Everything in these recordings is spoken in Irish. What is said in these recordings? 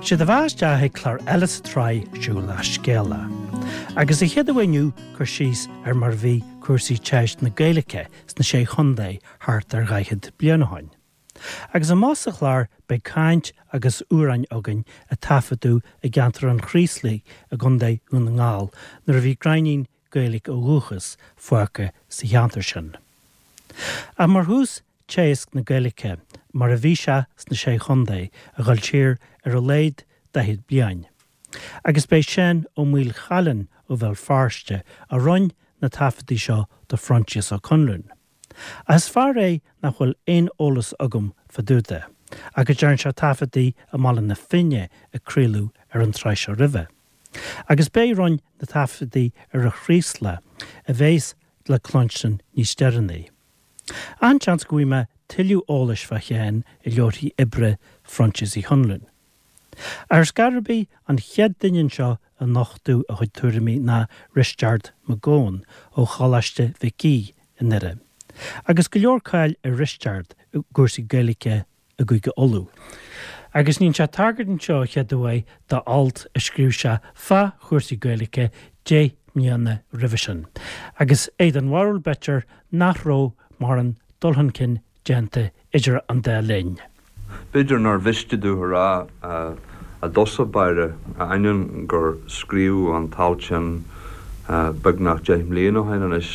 Sé do bheatha isteach ag clár eile sa tsraith Siúil le Scéala. Agus sa chéad uair inniu cur síos ar mar a bhí cúrsaí teagaisc na Gaeilge sna Sé Chontae thart ar dhaichead bliain ó shoin. Agus amach sa chlár beidh caint agus amhráin againn a taifeadadh i gceantar an Chraoslaigh i gContae Dhún na nGall nuair a bhí gráinnín Gaeilge ó dhúchas fágtha sa cheantar sin. Ach mar thús, teagasc na Gaeilge mar a bhí sé sna Sé Chontae a dhul siar ar a laghad daichead bliain. Agus b'é Seán Ó Maolchallann ó Bhéal Feirste a roinn na taifeadtaí seo do Phroinsias Ó Conluain. Ach is fear é nach bhfuil aon eolas agam fá dtaobh de, ach go dtearn sé taifeadtaí i mBaile na Finne a craoladh ar an tsraith seo roimhe. Agus b'é roinn na taifeadtaí ar an Chraoslach a bheas le cluinstin níos deireanaí. An-seans go bhfaighidh mé tuilleadh eolais fá Sheán i leabharthaí oibre Phroinsias Uí Chonluain. Ar scor ar bith, an chéad duine anseo a nochtadh a chuid tuairimí ná Risteard Mac Gabhann ó Choláiste Mhic Aoidh i nDoire. Agus go leor cáil ar Risteard i gcúrsaí Gaeilge i gCúige Uladh. Agus níonn sé tagairt anseo a chéad uair d'alt a scríobh sé fá chúrsaí Gaeilge deich mbliana roimhe sin. Agus é den bharúil b'fhéidir nach raibh mórán dul chun cinn déanta idir an dá linn. B'fhéidir nár mhiste domh a rá i dtosach báire, ainneoin gur scríobhadh an t-alt sin beagnach deich mbliana ó shin anois,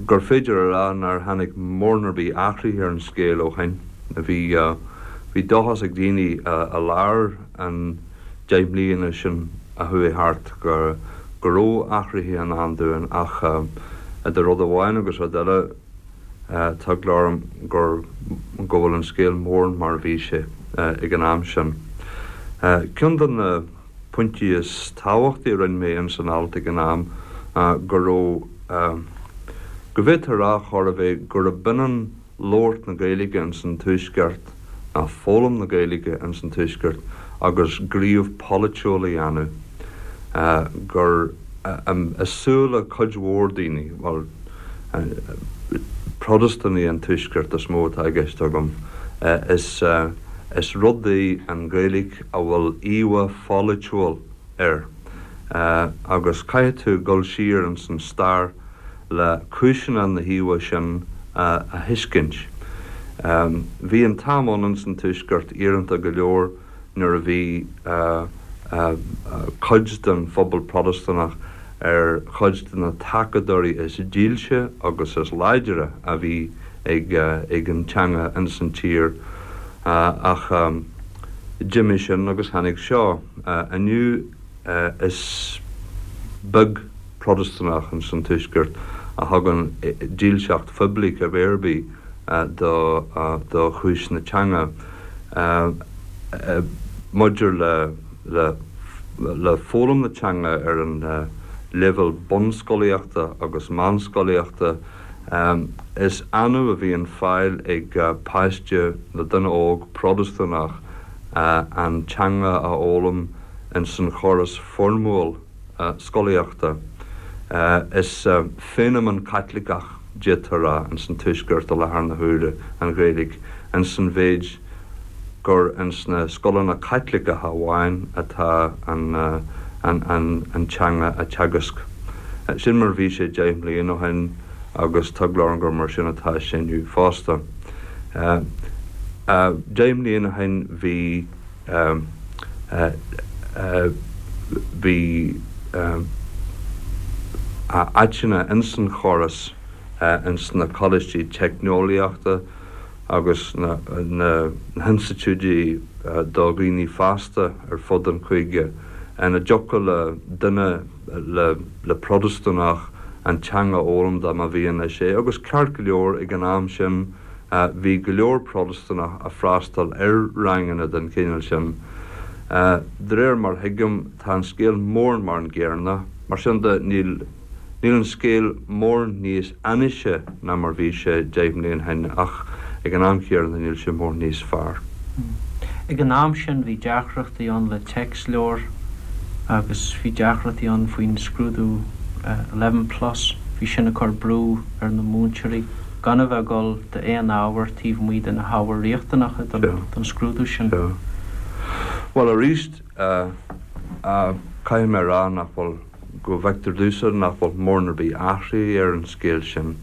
gur féidir a rá nár tháinig mórán ar bith athraithe ar an scéal ó shin. Bhí bhí dóchas ag daoine i lár an deich mbliana sin a chuaigh thart go go raibh athraithe i ndán dúinn ach idir rud amháin agus rud eile, Tá eagla orm gur go bhfuil an scéal mórán mar a bhí sé ag an am sin. Ceann de na pointí is tábhachtaí a rinne mé ins an alt ag an am ná go raibh, go bhféadfá a rá chor ar bith gurb ionann labhairt na Gaeilge ins an Tuaisceart ná foghlaim na Gaeilge ins an Tuaisceart agus gníomh polaitiúil a dhéanamh, gur i súile cuid mhór daoine, bhuel, Protastúnaigh an Tuaiscirt is mó atá i gceist agam. Is rud í an Ghaeilge a bhfuil íomhá pholaitiúil air agus caithfidh tú dul siar ins an stair le cúiseanna na híomhá sin a thuiscint. Bhí an t-am ann ins an Tuaisceart iaranta go leor nuair a bhí cuid den phobal Protastúnach ar chuid de na tacadóirí is dílse agus is láidre a bhí ag an teanga ins an tír. Ach d'imigh sin agus tháinig seo. Inniu is beag Protastúnach ins an Tuaisceart a thugann dílseacht phoiblí cibé ar bith do chúis na teanga. Maidir le le foghlaim na teanga ar an leibhéal bunscolaíochta agus meánscolaíochta, is annamh a bhíonn fáil ag páiste nó duine óg Protastúnach an teanga a fhoghlaim ins an chóras foirmiúil scolaíochta. Is feiniméan Caitliceach, d'fhéadfá a rá, ins an Tuaisceart i láthair na huaire, an Ghaeilge, ins an mhéid gur ins na scoileanna Caitliceacha amháin atá an teanga á teagasc. Sin mar a bhí sé deich mbliana ó shin agus tá eagla orm gur mar sin atá sé inniu fosta. Deich mbliana ó shin bhí bhí áiteanna ins an chóras ins na coláistí teicneolaíochta, agus na hinstitiúidí do dhaoine fásta ar fud an chúige ina dtiocfadh le duine, le Protastúnach, an teanga a fhoghlaim dá mba mhian leis é. Agus ceart go leor, ag an am sin bhí go leor Protastúnach ag freastal ar ranganna den chineál sin. De réir mar a thuigim, tá an scéal mórán mar an gcéanna. Mar sin de, níl. Níl an scéal mórán níos ainnise ná mar bhí sé deich mbliana ó shin ach ag an am chéanna níl sé mórán níos fearr. Ag an am sin bhí deacrachtaí ann le téacsleabhair agus bhí deacrachtaí ann faoin scrúdú Eleven Plus, bhí sin ag cur brú ar na múinteoirí gan a bheith ag dul d'aon ábhar taobh amuigh de na hábhair riachtanacha don scrúdú sin. Sea. Bhuel, arís, caithfidh mé a rá nach bhfuil, go bhfeictear domhsa nach bhfuil mórán ar bith athraithe ar an scéal sin.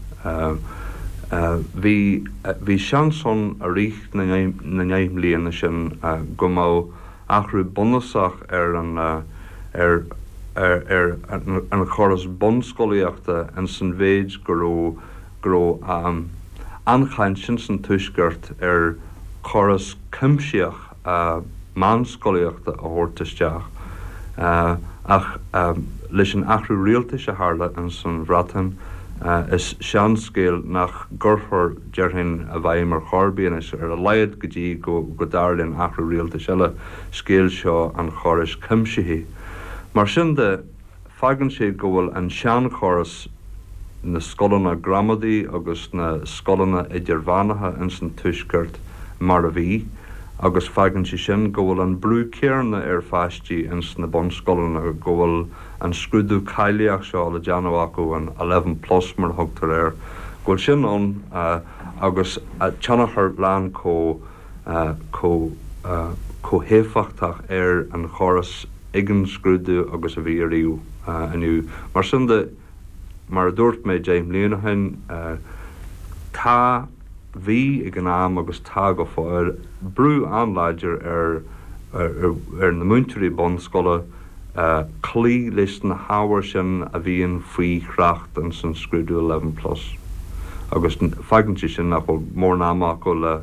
Bhí, bhí seans ann i rith na ndeich mbliana sin go mbeadh athrú bunúsach ar an, ar, ar an chóras bunscolaíochta ins an mhéid go raibh, go raibh an-chaint ins an Tuaisceart ar chóras cuimsitheach meánscolaíochta a thabhairt isteach ach leis an athrú rialtais a tharla ins an Bhreatain is seanscéal nach gcuirfear, déarfainn, i bhfeidhm ar chor ar bith anois, ar a laghad go dtí go dtarlaíonn athrú rialtais eile, scéal seo an chórais chuimsithigh. Mar sin de, Fágann sé go bhfuil an seanchóras, na scoileanna gramadaí agus na scoileanna idirmheánacha ins an Tuaisceart mar a bhí agus fágann sé sin go bhfuil an brú céanna ar pháistí ins na bunscoileanna, go bhfuil an scrúdú cáilíoch seo le déanamh acu, an eleven plus mar a thugtar air, go bhfuil sin ann agus tionchar lán chomh chomh chomh héifeachtach ar an chóras ag an scrúdú agus a bhí ariamh inniu. Mar sin de, mar a dúirt mé 10 mbliana ó shin, tá, bhí ag an am agus tá go fóill, brú an-láidir ar ar na múinteoirí bunscoile cloí leis na hábhair sin a bhíonn faoi thrácht ins an scrúdú Eleven Plus agus fágann sé sin nach bhfuil mórán ama acu le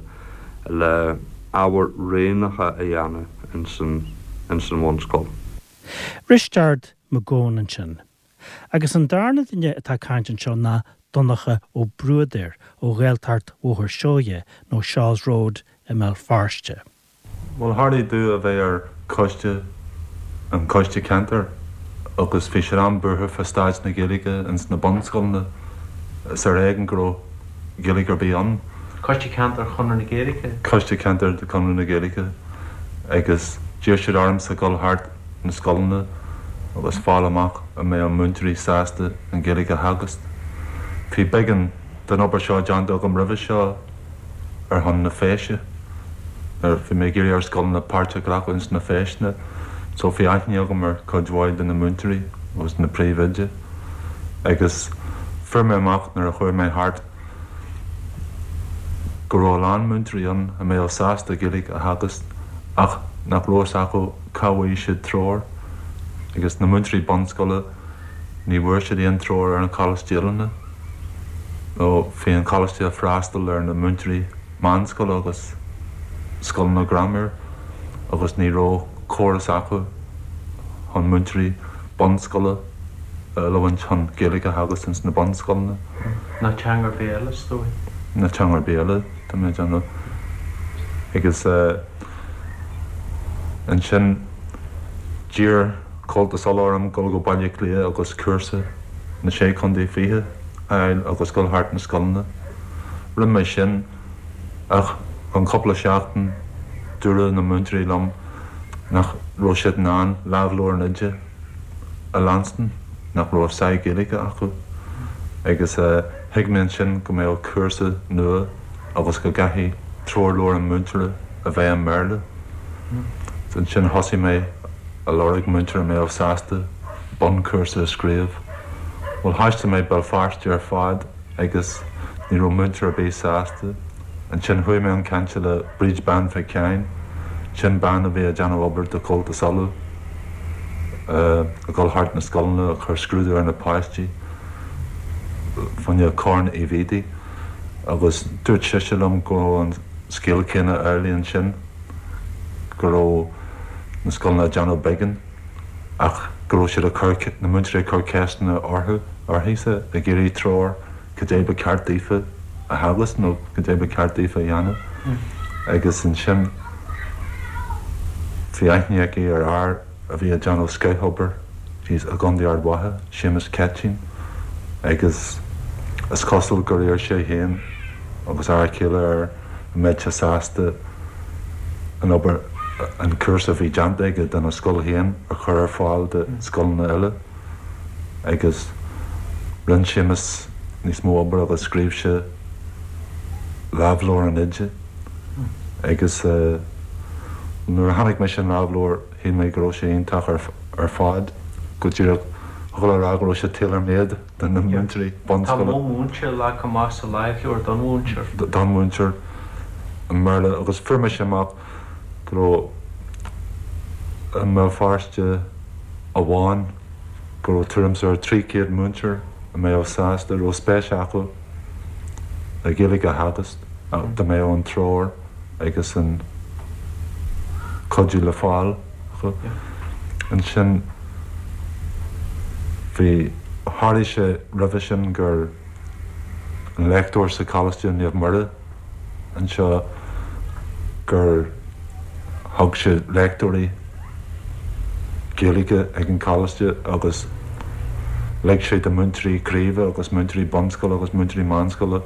le ábhair roghnacha a dhéanamh ins an ins an bhunscoil. Risteard Mac Gabhann ansin. Agus an darna duine atá ag caint anseo ná Donncha Ó Bruadair ó Ghaeltacht Bhóthar Seoighe nó Shaw's Road i mBéal Feirste. Bhuel, tharlaigh domh a bheith ar choiste, an coiste ceantair, agus bhí siad an-bhuartha fá staid na Gaeilge ins na bunscoileanna. Is ar éigean go raibh Gaeilge ar bith ann. Coiste Ceantair Chonradh na Gaeilge? Coiste Ceantair de Chonradh na Gaeilge. Agus d'iarr siad ormsa dul thart na scoileanna agus fáil amach an mbeadh múinteoirí sásta an Ghaeilge a theagasc. Bhí beagán den obair seo déanta agam roimhe seo ar shon na Feise, nuair a bhí mé ag iarraidh ar scoileanna páirt a ghlacadh ins na feiseanna, so bhí aithne agam ar chuid mhaith de na múinteoirí agus na príomhoidí agus fuair mé amach nuair a chuaigh mé thart go raibh a lán múinteoirí ann a mbeadh sásta Gaeilge a theagasc ach nach raibh fhios acu cá bhfaighidh siad treoir agus na múinteoirí bunscoile ní bhfuair siad aon treoir ar an Choláiste Oiliúna nó bhí an Coláiste ag freastal ar na múinteoirí meánscoile agus scoileanna graiméir agus ní raibh córas acu chun múinteoirí bunscoile a oiliúint chun Gaeilge a theagasc ins na bunscoileanna. Ná teanga ar bith eile, is dóigh. Ná teanga ar bith eile, tá mé ag déanamh. Agus ansin d'iarr Comhaltas Uladh orm dul go Baile Átha Cliath agus cúrsa na Sé Chontae Fichead a fháil agus dul thart na scoileanna. Rinne mé sin ach i gcionn cúpla seachtain dúradh na múinteoirí liom nach raibh siad in ann lámhleabhar an oide a leanstan, nach raibh saghas Gaeilge acu agus thuig mé ansin go mbeadh cúrsa nua agus go gcaithfidh treoirleabhar an mhúinteora a bheith i mBéarla. Ansin thosaigh mé a lorg múinteoir a mbeadh sásta bunchúrsa a scríobh. Bhuel thaistil mé Béal Feirste ar fad agus ní raibh múinteoir ar bith sásta. Ansin chuaigh mé chun cainte le Bríd Bean Mhic Sheáin, sin bean a bhí ag déanamh obair do Chomhaltas Uladh, ag dul thart na scoileanna ag cur scrúdú ar na páistí fá choinne Corn Uí Bhiadaigh agus dúirt sise liom go raibh an scéal céanna amhlaidh ansin, go raibh na scoileanna ag déanamh beagán ach go raibh siad ag cur, na múinteoirí ag cur ceisteanna orthu, uirthise, ag iarraidh treoir. cad é ba cheart daofa a theagasc nó cad é ba cheart daofa a dhéanamh agus ansin bhí aithne aici ar fhear a bhí ag déanamh scothobair thíos i gContae Ard Mhacha, Séamus Ceitín, agus is cosúil gur iarr sé féin agus a fhear céile air an mbeadh sé sásta an obair, an cúrsa a bhí déanta aige dona scoil féin a chur ar fáil do scoileanna eile. agus rinne Séamus níos mó obair agus scríobh sé lámhleabhar an oide agus. Nuair a chonaic mise an lámhleabhar shíl mé go raibh sé iontach ar fad, go díreach thiocfadh le rá go raibh sé tailor-made do na múinteoirí bunscoile. Tá modh múinte leagtha amach sa lámhleabhar don mhúinteoir. Don mhúinteoir i mBéarla agus fuair mise amach go raibh i mBéal Feirste amháin go raibh tuairim is ar 300 múinteoir a mbeadh sásta, a raibh spéis acu le Gaeilge a theagasc dá mbeadh an treoir agus an cuidiú le fáil acu. Ansin bhí, tharlaigh sé roimhe sin gur an léachtóir sa Choláiste Naomh Muire anseo gur thug sé léachtóirí Gaeilge ag an choláiste agus lig sé do múinteoirí craoibhe agus múinteoirí bunscoile agus múinteoirí meánscoile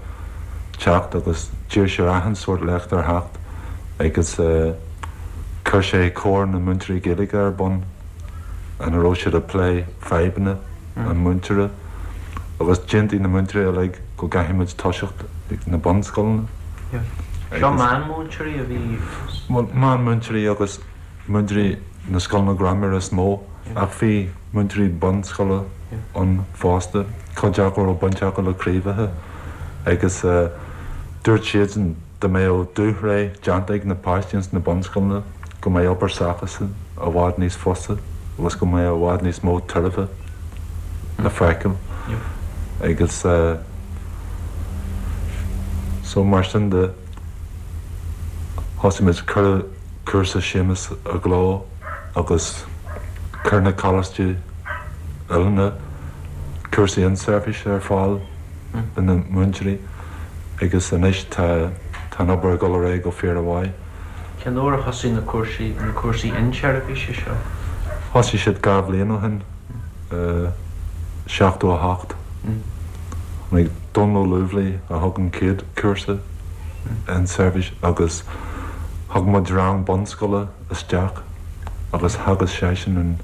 teacht agus d'iarr sé ar achan sórt léachtóir theacht agus chuir sé Comhar na Múinteoirí Gaeilge ar bun ina raibh siad ag plé fadhbanna an mhúinteora agus d'aontaigh na múinteoirí uilig go gcaithfidh muid toiseacht ag na bunscoileanna. Seo meánmhúinteoirí a bhí. Bhuel, meánmhúinteoirí agus múinteoirí na scoileanna graiméir is mó ach bhí múinteoirí bunscoile ann fosta, cuid acu a raibh baint acu le craobhacha agus dúirt siadsan dá mbeadh dúshraith déanta ag na páistí ins na bunscoileanna go mbeadh obair s'acusan i bhfad níos fusa agus go mbeadh i bhfad níos mó tairbhe le feiceáil agus so mar sin de thosaigh muid, cuireadh cúrsa Séamus i gcló agus chuir na coláistí oiliúna cúrsaí inseirbhíse ar fáil do na múinteoirí agus anois tá tá an obair ag dul ar aghaidh go fíormhaith. Cén uair a thosaigh na cúrsaí na cúrsaí inseirbhíse seo? Thosaigh siad 2 bhliain ó shin, 78. Tháinig Dónal Ó Lúbhlaí a thug an chéad chúrsa inseirbhíse agus thug muid rang bunscoile isteach agus theagasc seisean an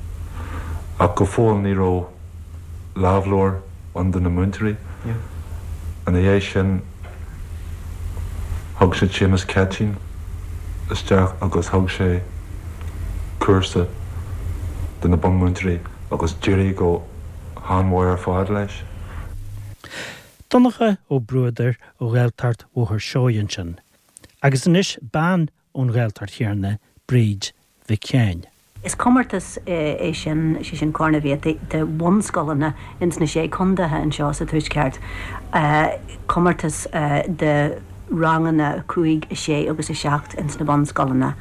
ach go fóill ní raibh lámhleabhar ann do na múinteoirí. Ina dhiaidh sin thug siad Séamus Ceitinn isteach agus thug sé cúrsa do na bunmhúinteoirí agus d'éirigh go han-mhaith ar fad leis. Donncha Ó Bruadair ó Ghaeltacht Bhóthar Seoighe ansin. Agus anois bean ón Ghaeltacht chéanna, Bríd Mhic Sheáin. Is comórtas é sin, sé sin Corn Uí Bhiataigh, de bhunscoileanna ins na Sé Condaetha anseo sa Tuaisceart. Comórtas de ranganna 5, 6 agus 7 ins na bunscoileanna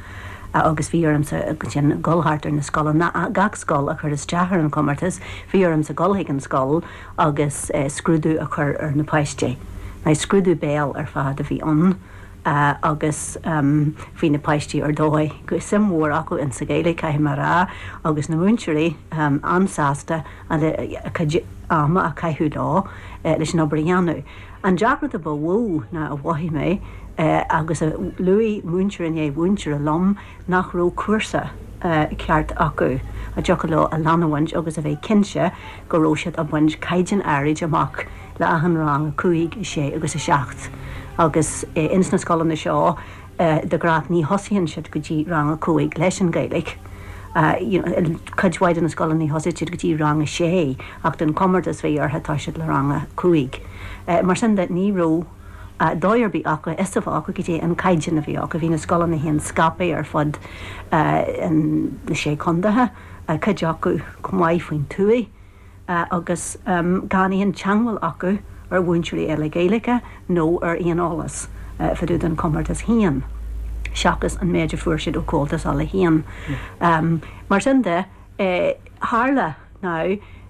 agus bhí ormsa ansin dul thart ar na scoileanna, gach scoil a chuir isteach ar an chomórtas, bhí ormsa dul chuig an scoil agus scrúdú a chur ar na páistí. Now scrúdú béil ar fad a bhí ann. agus bhí na páistí ar dóigh, suim mhór acu in sa Ghaeilge, caithfidh mé a rá, agus na múinteoirí an-sásta a cuid ama a chaitheamh leo leis an obair a dhéanamh. An deacracht a ba mhó ná a mhothaigh mé, agus a luaigh múinteoir i ndiaidh mhúinteora liom, nach raibh cúrsa ceart acu a dtiocfadh leo a leanamhaint agus a bheith cinnte go raibh siad a' baint caighdeán áirid amach le achan rang 5, 6 agus 7 agus ins na scoileanna seo de ghnáth ní thosaíonn siad go dtí rang 5 leis an Ghaeilge. You know, cuid mhaith de na scoileanna ní thosaíonn siad go dtí rang 6 ach don chomórtas bhí orthu toiseacht le rang 5. Mar sin de ní raibh dóigh ar bith acu, fhios a bheith acu goidé an caighdeán a bhí acu. Bhí na scoileanna féin scaipthe ar fud na sé condaetha, cuid acu chomh maith faoin tuaith agus gan aon teangmháil acu ar mhúinteoirí eile Gaeilge nó ar aon eolas fá dtaobh den chomórtas féin, seachas an méid a fuair siad ó Comhaltas Uladh féin. Mar sin de, tharla Now,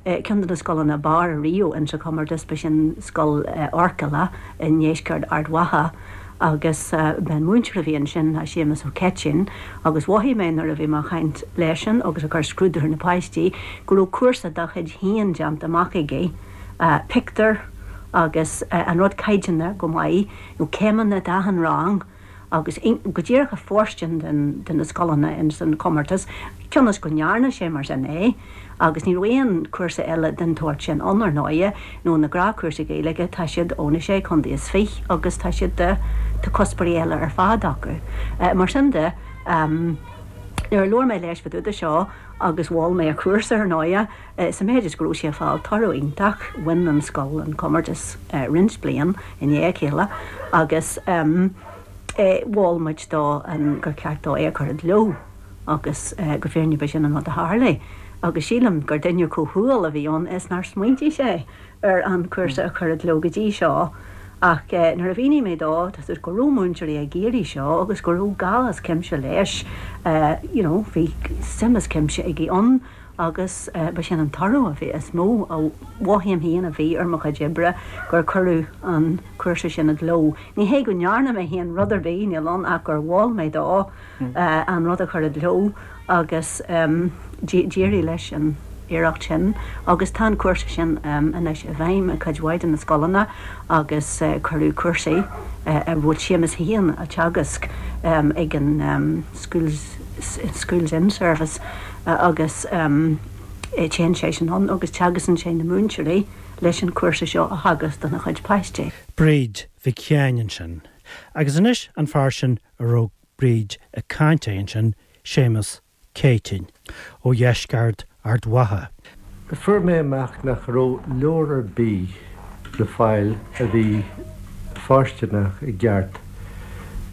ceann de na scoileanna ab fhearr ariamh insa chomórtas, ba sin Scoil Fhoirceala i ndeisceart Ard Mhacha agus b'é an múinteoir a bhí ansin ná Séamus Ó Ceitín agus mhothaigh mé nuair a bhí mé ag caint leisean agus ag cur scrúdú ar na páistí go raibh cúrsa dá chuid féin déanta amach aige, pictiúir agus an rud caighdeánta go maith, nó céimeanna d'achan rang. agus go díreach ag fóirstean de na scoileanna ins an chomórtas, cionn is go ndearna sé mar sin é, agus ní raibh aon chúrsa eile den tsórt sin ann, ar ndóighe, nó na gnáthchúrsaí Gaeilge, tá siad ó na Sé Chontae is Fiche agus tá siad de, tá cuspóirí eile ar fad acu. Mar sin de. Nuair a labhair mé leis fá dtaobh de seo agus mhol mé a chúrsa ar ndóighe, sa méid is go raibh sé ag fáil toradh iontach, bhain an scoil an comórtas roinnt bliain i ndiaidh a chéile agus mhol muid dó gur cheart dó é a chur i gcló agus go fírinneach ba sin an rud a tharlaigh agus sílim gur duine chomh humhal a bhí ann is nár smaointigh sé ar an chúrsa a chur i gcló go dtí seo ach nuair a mhínigh mé dó tá go raibh múinteoirí ag iarraidh seo agus go raibh gá as cuimse leis you know bhí suim as cuimse aige ann agus ba sin an toradh a bhí is mó a mhothaím féin a bhí ar mo chuid oibre gur cuireadh an cúrsa sin i gcló. Ní hé go ndearna mé féin rud ar bith, níl ann ach gur mhol mé dó an rud a chur i gcló agus d'éirigh leis an iarracht sin agus tá an cúrsa sin anois i bhfeidhm i gcuid mhaith de na scoileanna agus cuireadh cúrsaí a bhfuil Séamus féin á teagasc ag an Schools Schools In-Service agus téann seisean ann agus teagascann sé na múinteoirí leis an chúrsa seo a theagasc dona chuid páistí. Bríd Mhic Sheáin ansin. Agus anois an fear sin a raibh Bríd ag caint air ansin, Séamus Céitinn, ó dheisceart Ard Mhacha. Fuair mé amach nach raibh leabhar ar bith le fáil a bhí fóirsteanach i gceart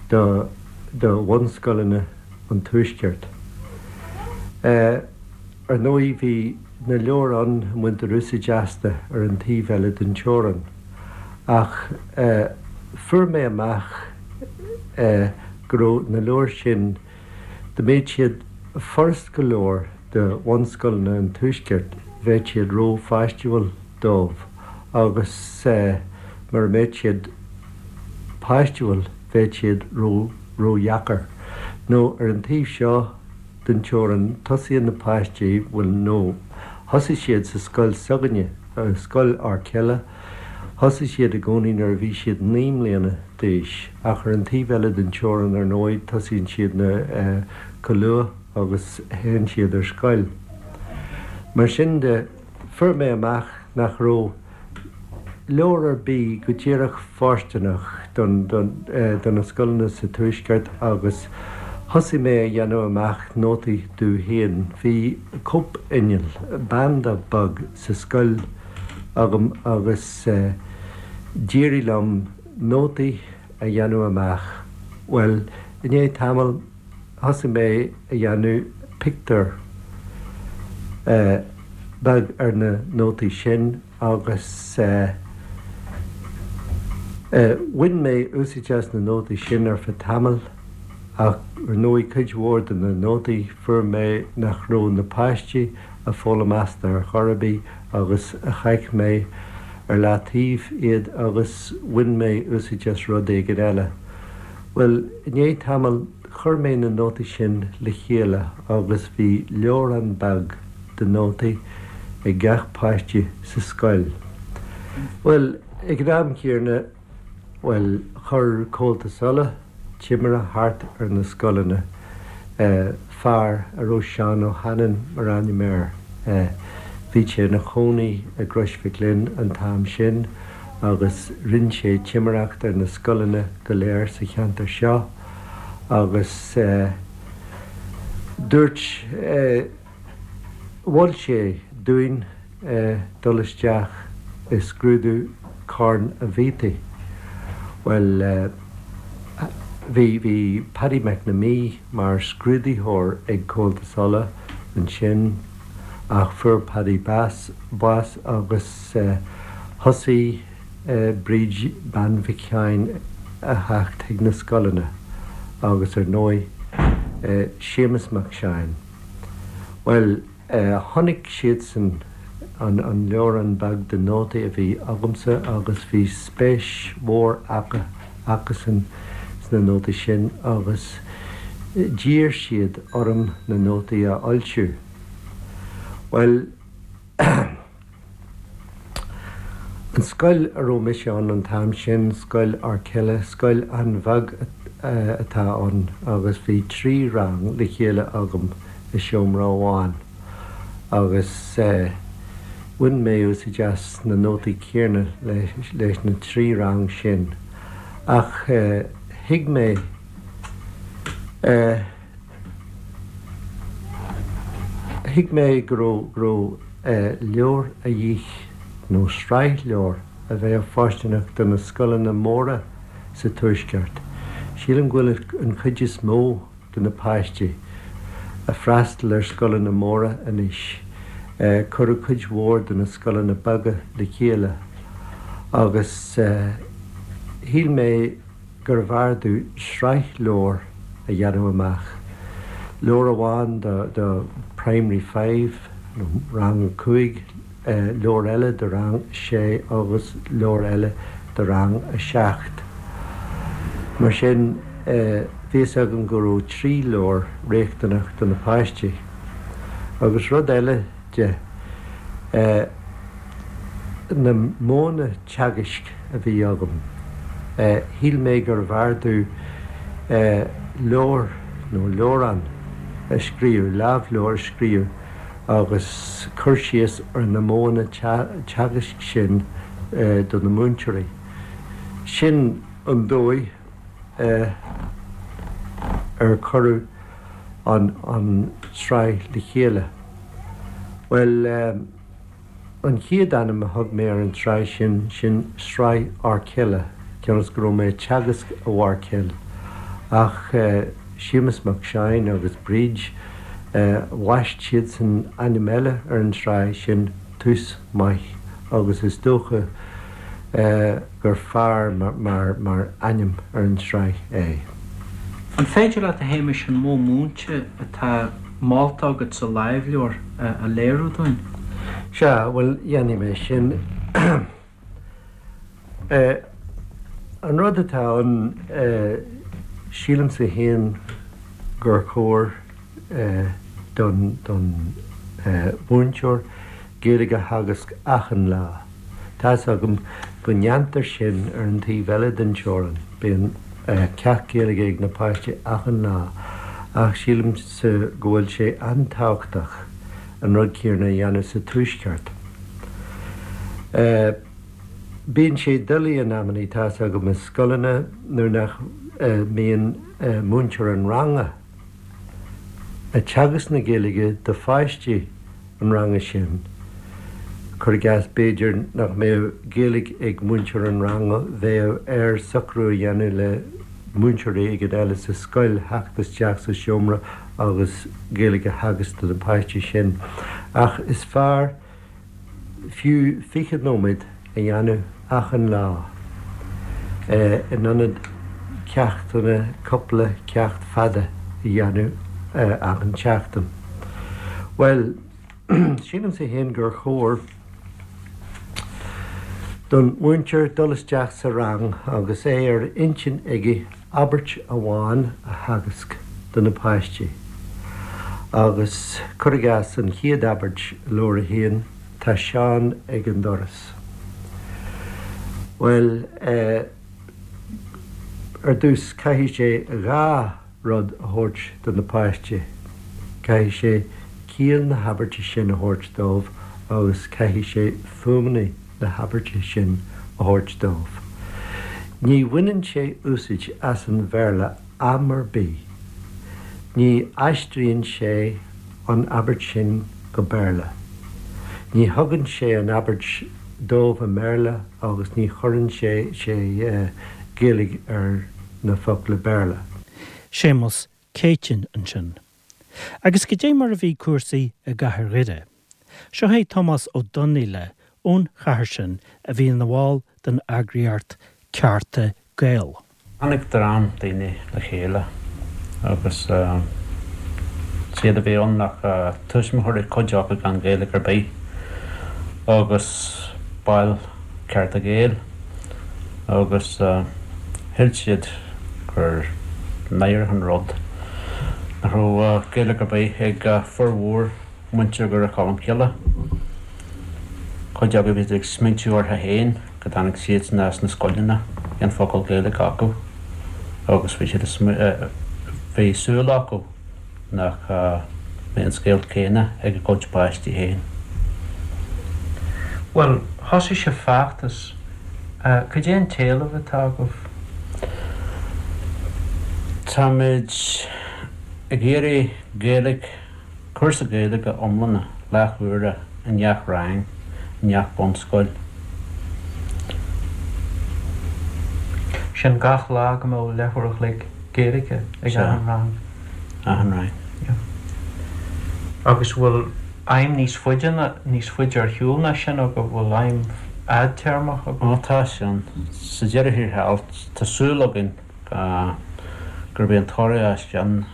do do bhunscoileanna an Tuaiscirt. Ar ndóigh bhí na leabhair ann a mbaintear úsáid astu ar an taobh eile den teorainn ach fuair mé amach go raibh na leabhair sin, dá mbeadh siad furast go leor do bhunscoileanna an Tuaiscirt, bheadh siad ró-pháistiúil dóibh agus mura mbeadh siad páistiúil bheadh siad ró-dheacair. Nó ar an taobh seo den teorainn tosaíonn na páistí, bhuel nó thosaigh siad sa scoil s'againne, Scoil Acaill, thosaigh siad i gcónaí nuair a bhí siad 9 mbliana d'aois ach ar an taobh eile den teorainn ar ndóigh tosaíonn siad na chomh luath agus théann siad ar scoil. Mar sin de, fuair mé amach nach raibh leabhar ar bith go díreach fóirsteanach don do na scoileanna sa Tuaisceart agus thosaigh mé a dhéanamh amach nótaí domh féin. Bhí cóip-inneall, banda beag sa scoil agam agus d'éirigh liom nótaí a dhéanamh amach. Bhuel, i ndiaidh tamaill, thosaigh mé a dhéanamh pictiúr beag ar na nótaí sin agus bhain mé úsáid as na nótaí sin ar feadh tamaill ach ar ndóigh cuid mhór de na nótaí fuair mé nach raibh na páistí ag foghlaim astu ar chor ar bith agus chaith mé ar leataobh iad agus bhain mé úsáid as rud éigin eile. Bhuel, i ndiaidh tamaill, chuir mé na nótaí sin le chéile agus bhí leabhrán beag de nótaí ag gach páiste sa scoil. Bhuel, ag an am chéanna, bhuel, chuir Comhaltas Uladh timire thart ar na scoileanna, fear a raibh Seán Ó hAinnín mar ainm air. Bhí sé ina chónaí i gCrois Mhic Lionn an t-am sin. agus rinn sé timireacht ar na scoileanna go léir sa cheantar seo agus dúirt, mhol sé dúinn dul isteach i scrúdú Chorn a' Bhiataigh. Bhuel, bhí, bhí Paddy McNamee mar scrúdaitheoir ag Comhaltas Uladh ansin ach fuair Paddy bás, bás agus. Thosaigh Bríd Bean Mhic Sheáin a theacht chuig na scoileanna agus ar ndóigh Séamus Mac Seáin. Bhuel, chonaic siadsan an leabhrán beag de nótaí a bhí agamsa agus bhí spéis mhór acu, acusan sna nótaí sin agus d'iarr siad orm na nótaí a fhoilsiú. Bhuel, An scoil a raibh mise ann an t-am sin, Scoil Acaill, scoil an-bheag atá ann agus bhí 3 rang le chéile agam i seomra amháin agus bhain mé úsáid as na nótaí céanna leis na 3 rang sin ach thuig mé. Thuig mé go raibh, go raibh leabhar a dhíth, nó sraith leabhar, a bheadh fóirsteanach do na scoileanna móra sa Tuaisceart. Sílim go bhfuil an chuid is mó de na páistí ag freastal ar scoileanna móra anois. Cuireadh cuid mhór de na scoileanna beaga le chéile agus shíl mé gurbh fhearr domh sraith leabhar a dhéanamh amach, leabhar amháin do Primary Five nó Rang a 5, leabhar eile do Rang a 6 agus leabhar eile do Rang a 7. Mar sin, bhí fhios agam go raibh 3 leabhar riachtanach do na páistí. Agus rud eile de, na modhanna teagaisc a bhí agam, shíl mé gurbh fhearr domh leabhar nó leabhrán a scríobh, lámhleabhar a scríobh agus cur síos ar na modhanna teagaisc sin do na múinteoirí. Sin an dóigh ar cuireadh an tsraith le chéile. Bhuel. An chéad ainm a thug mé ar an tsraith sin, sin Sraith Fháircille, cionn is go raibh mé ag teagasc i bhFáircill. Ach Séamus Mac Seáin agus Bríd, bhaist siadsan ainm eile ar an tsraith sin, Tús Maith, agus is dócha gur fearr mar ainm ar an tsraith é. An féidir leat, a Shéamais, an modh múinte atá molta agat sa lámhleabhar a léiriú dúinn? Sea, bhuel, dhéanfaidh mé sin. An rud atá ann, sílimse féin gur chóir don mhúinteoir Gaeilge a theagasc achan lá. Tá's agam go ndéantar sin ar an taobh eile den teorainn, bíonn ceacht Gaeilge ag na páistí achan lá, ach sílimse go bhfuil sé an-tábhachtach an rud céanna a dhéanamh sa Tuaisceart. Bíonn sé doiligh in amannaí, tá's agam, i scoileanna nuair nach mbíonn múinteoir an ranga ag teagasc na Gaeilge do pháistí an ranga sin. Cuir i gcás, b'fhéidir nach mbeadh Gaeilge ag múinteoir an ranga, bheadh air socrú a dhéanamh le múinteoir éigin eile sa scoil theacht isteach sa seomra agus Gaeilge a theagasc do na páistí sin. Ach is fearr fiú 20 nóiméad a dhéanamh achan lá in ionad ceachtanna, cúpla ceacht fada a dhéanamh achan tseachtain. Bhuel, sílimse féin gur chóir don mhúinteoir dul isteach sa rang agus é ar intinn aige abairt amháin a theagasc do na páistí agus, cuir i gcás, an chéad abairt i leabhar a haon, Tá Seán ag an doras. Bhuel, ar dtús caithfidh sé 2 rud a thabhairt do na páistí. Caithfidh sé ciall na habairte sin a thabhairt dóibh agus caithfidh sé fuaimeanna na habairte sin a thabhairt dóibh. Ní bhaineann sé úsaid as an Bhéarla am ar bith. Ní aistríonn sé an abairt sin go Béarla. Ní thugann sé an abairt dóibh i mBéarla agus ní chuireann sé sé Gaeilge ar na focla Béarla. Séamus Céitinn ansin. Agus goidé mar a bhí cúrsaí i gcathair Dhoire. Seo é Tomás Ó Donnaíle ón chathair sin a bhí ina bhall den eagraíocht Cearta Gael. Tháinig dream daoine le chéile agus is iad a bhí ann ach tuismitheoirí, cuid acu gan Ghaeilge ar bith, agus baill Cearta Gael agus shíl siad gur náireach an rud nach raibh Gaeilge ar bith ag formhór muintir Dhoire Cholmcille. Cuid acu bhí siad ag smaointiú orthu féin go dtáinig siadsan as na scoileanna gan focal Gaeilge acu agus bhí siad bhí súil acu nach mbeadh an scéal céanna ag a gcuid páistí féin. Bhuel, thosaigh sibh feachtas. Cad é an t-éileamh atá agaibh? Táimid ag iarraidh Gaeilge. Cúrsa Gaeilge iomlána leath-huaire i ngach rang i ngach bunscoil. Sin gach lá go mbeadh leathuair a chloig Gaeilge ag achan rang. Achan rang. Yeah. Agus bhfuil aidhm níos faide ná, níos faide ar shiúl ná sin agaibh, bhfuil aidhm fhadtéarmach agaibh? Ó tá sin. Sa deireadh thiar thall, tá súil againn gurb é an toradh as sin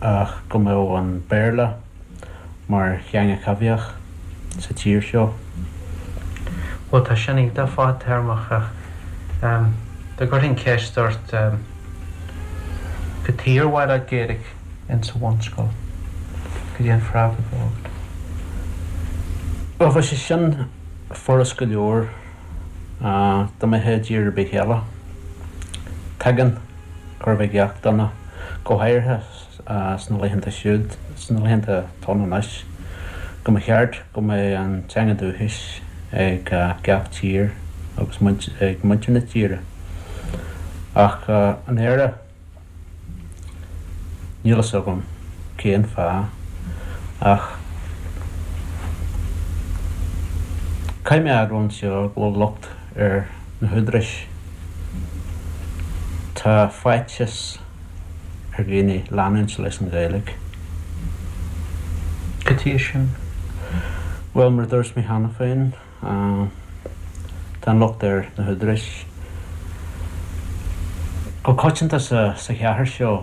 ach go mbeadh an Béarla mar theanga choimhthíoch sa tír seo. Bhuel, tá sin iontach fadtéarmach ach dá gcuirfinn ceist ort cad chuige ar mhaith leat Gaeilge insa bhunscoil, cad é an freagra a bheadh agat? Bhuel, bheadh sé sin furast go leor dá mbeifeá i dtír ar bith eile. Tuigeann chóir a bheith gach duine, go háirithe sna laethanta siúd, sna laethanta atá ann anois, go mba cheart go mbeadh an teanga dúchais ag gach tír agus ag muintir na tíre. Ach in Éire, níl fhios agam cén fáth, ach caithfidh mé a admháil anseo go bhfuil locht ar na húdaráis. Tá faitíos. ar dhaoine leanúint leis an Ghaeilge. Cad chuige sin? Bhuel, mar a dúirt mé cheana féin, tá an locht ar na húdaráis. Go coitianta sa chathair seo,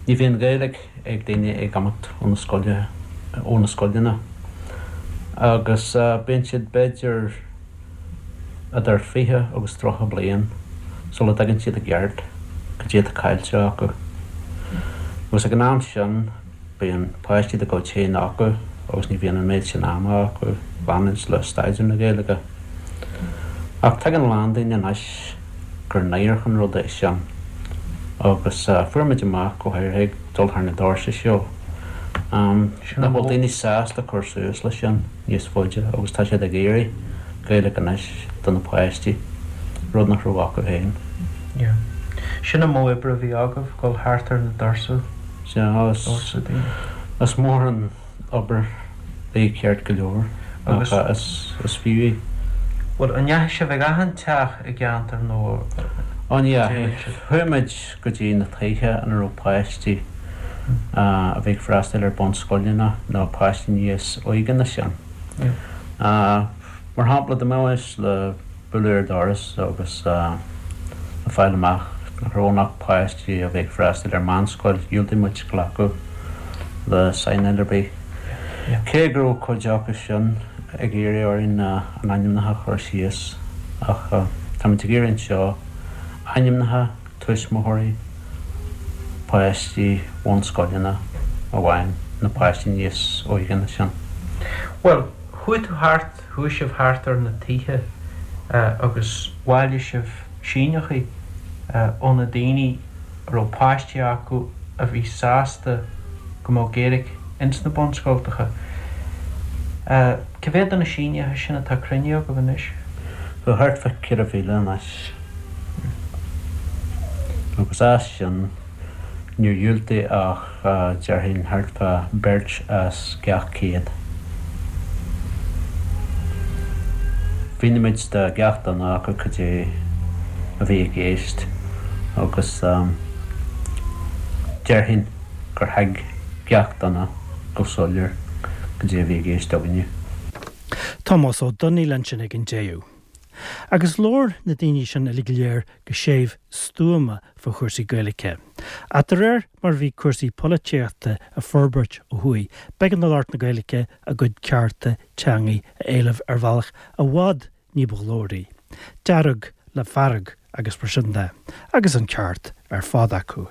ní bhíonn Gaeilge ag daoine ag imeacht ó na scoile, ó na scoileanna agus bíonn siad b'fhéidir, idir 20 agus 30 bliain sula dtuigeann siad i gceart cad é atá caillte acu. Agus ag an am sin bíonn páistí dá gcuid féin acu agus ní bhíonn an méid sin ama acu leanúint le staidéar na Gaeilge. Ach tuigeann a lán daoine anois gur náireach an rud é sin agus fuair muid amach, go háirithe ag dul thar na doirse seo, nach bhfuil daoine sásta cur suas leis sin. níos faide agus tá siad ag iarraidh Gaeilge anois do na páistí, rud nach raibh acu féin. Yeah. Sin an modh oibre a bhí agaibh, dul thart ar na doirse, Sea, doirse daoine. Is mór an obair í ceart go leor Agus. ach is, is fiú í. Bhuel, an ndeachaigh sibh ag achan teach i gceantar nó Ó ní dheachaigh. dheachaigh. Chuaigh muid go dtí na tithe ina raibh páistí a bhí ag freastal ar bunscoileanna nó páistí níos óige ná sin. Mar shampla, dá mbeimis le bualadh ar doras agus le fáil amach nach raibh ann ach páistí a bhí ag freastal ar meánscoil, dhiúltaigh muid glacadh le saighneáil ar bith. Cé go raibh cuid acu sin ag iarraidh orainn a n-ainmneacha a chur síos, ach táimid ag iarraidh anseo ainmneacha tuismitheoirí páistí bhunscoileanna amháin, na páistí níos óige ná sin. Bhuel, chuaigh tú thart, chuaigh sibh thart ar na tithe agus bhailigh sibh síneachaí ó na daoine a raibh páistí acu a bhí sásta go mbeadh Gaeilge ins na bunscoltacha. Cé mhéad de na síneacha sin atá cruinnithe agaibh anois? Tá thart fá 4,000 anois. Agus as sin, níor dhiúltaigh ach, déarfainn, thart fá beirt as gach 100. Mhínigh muid do gach duine acu cad é a bhí i gceist agus déarfainn gur thuig gach duine go soiléir cad é a bhí i gceist againne. Tomás Ó Donnaíl ansin ag an deireadh. Agus labhair na daoine sin uilig go léir go séimh stuama fá chúrsaí Gaeilge. Ach de réir mar a bhí cúrsaí polaitíochta ag forbairt ó thuaidh, b'éigean do lucht na Gaeilge a gcuid cearta teangaidh a éileamh ar bhealach i bhfad ní ba ghlóraí. Dearg le fearg agus mar sin de. Agus an ceart ar fad acu.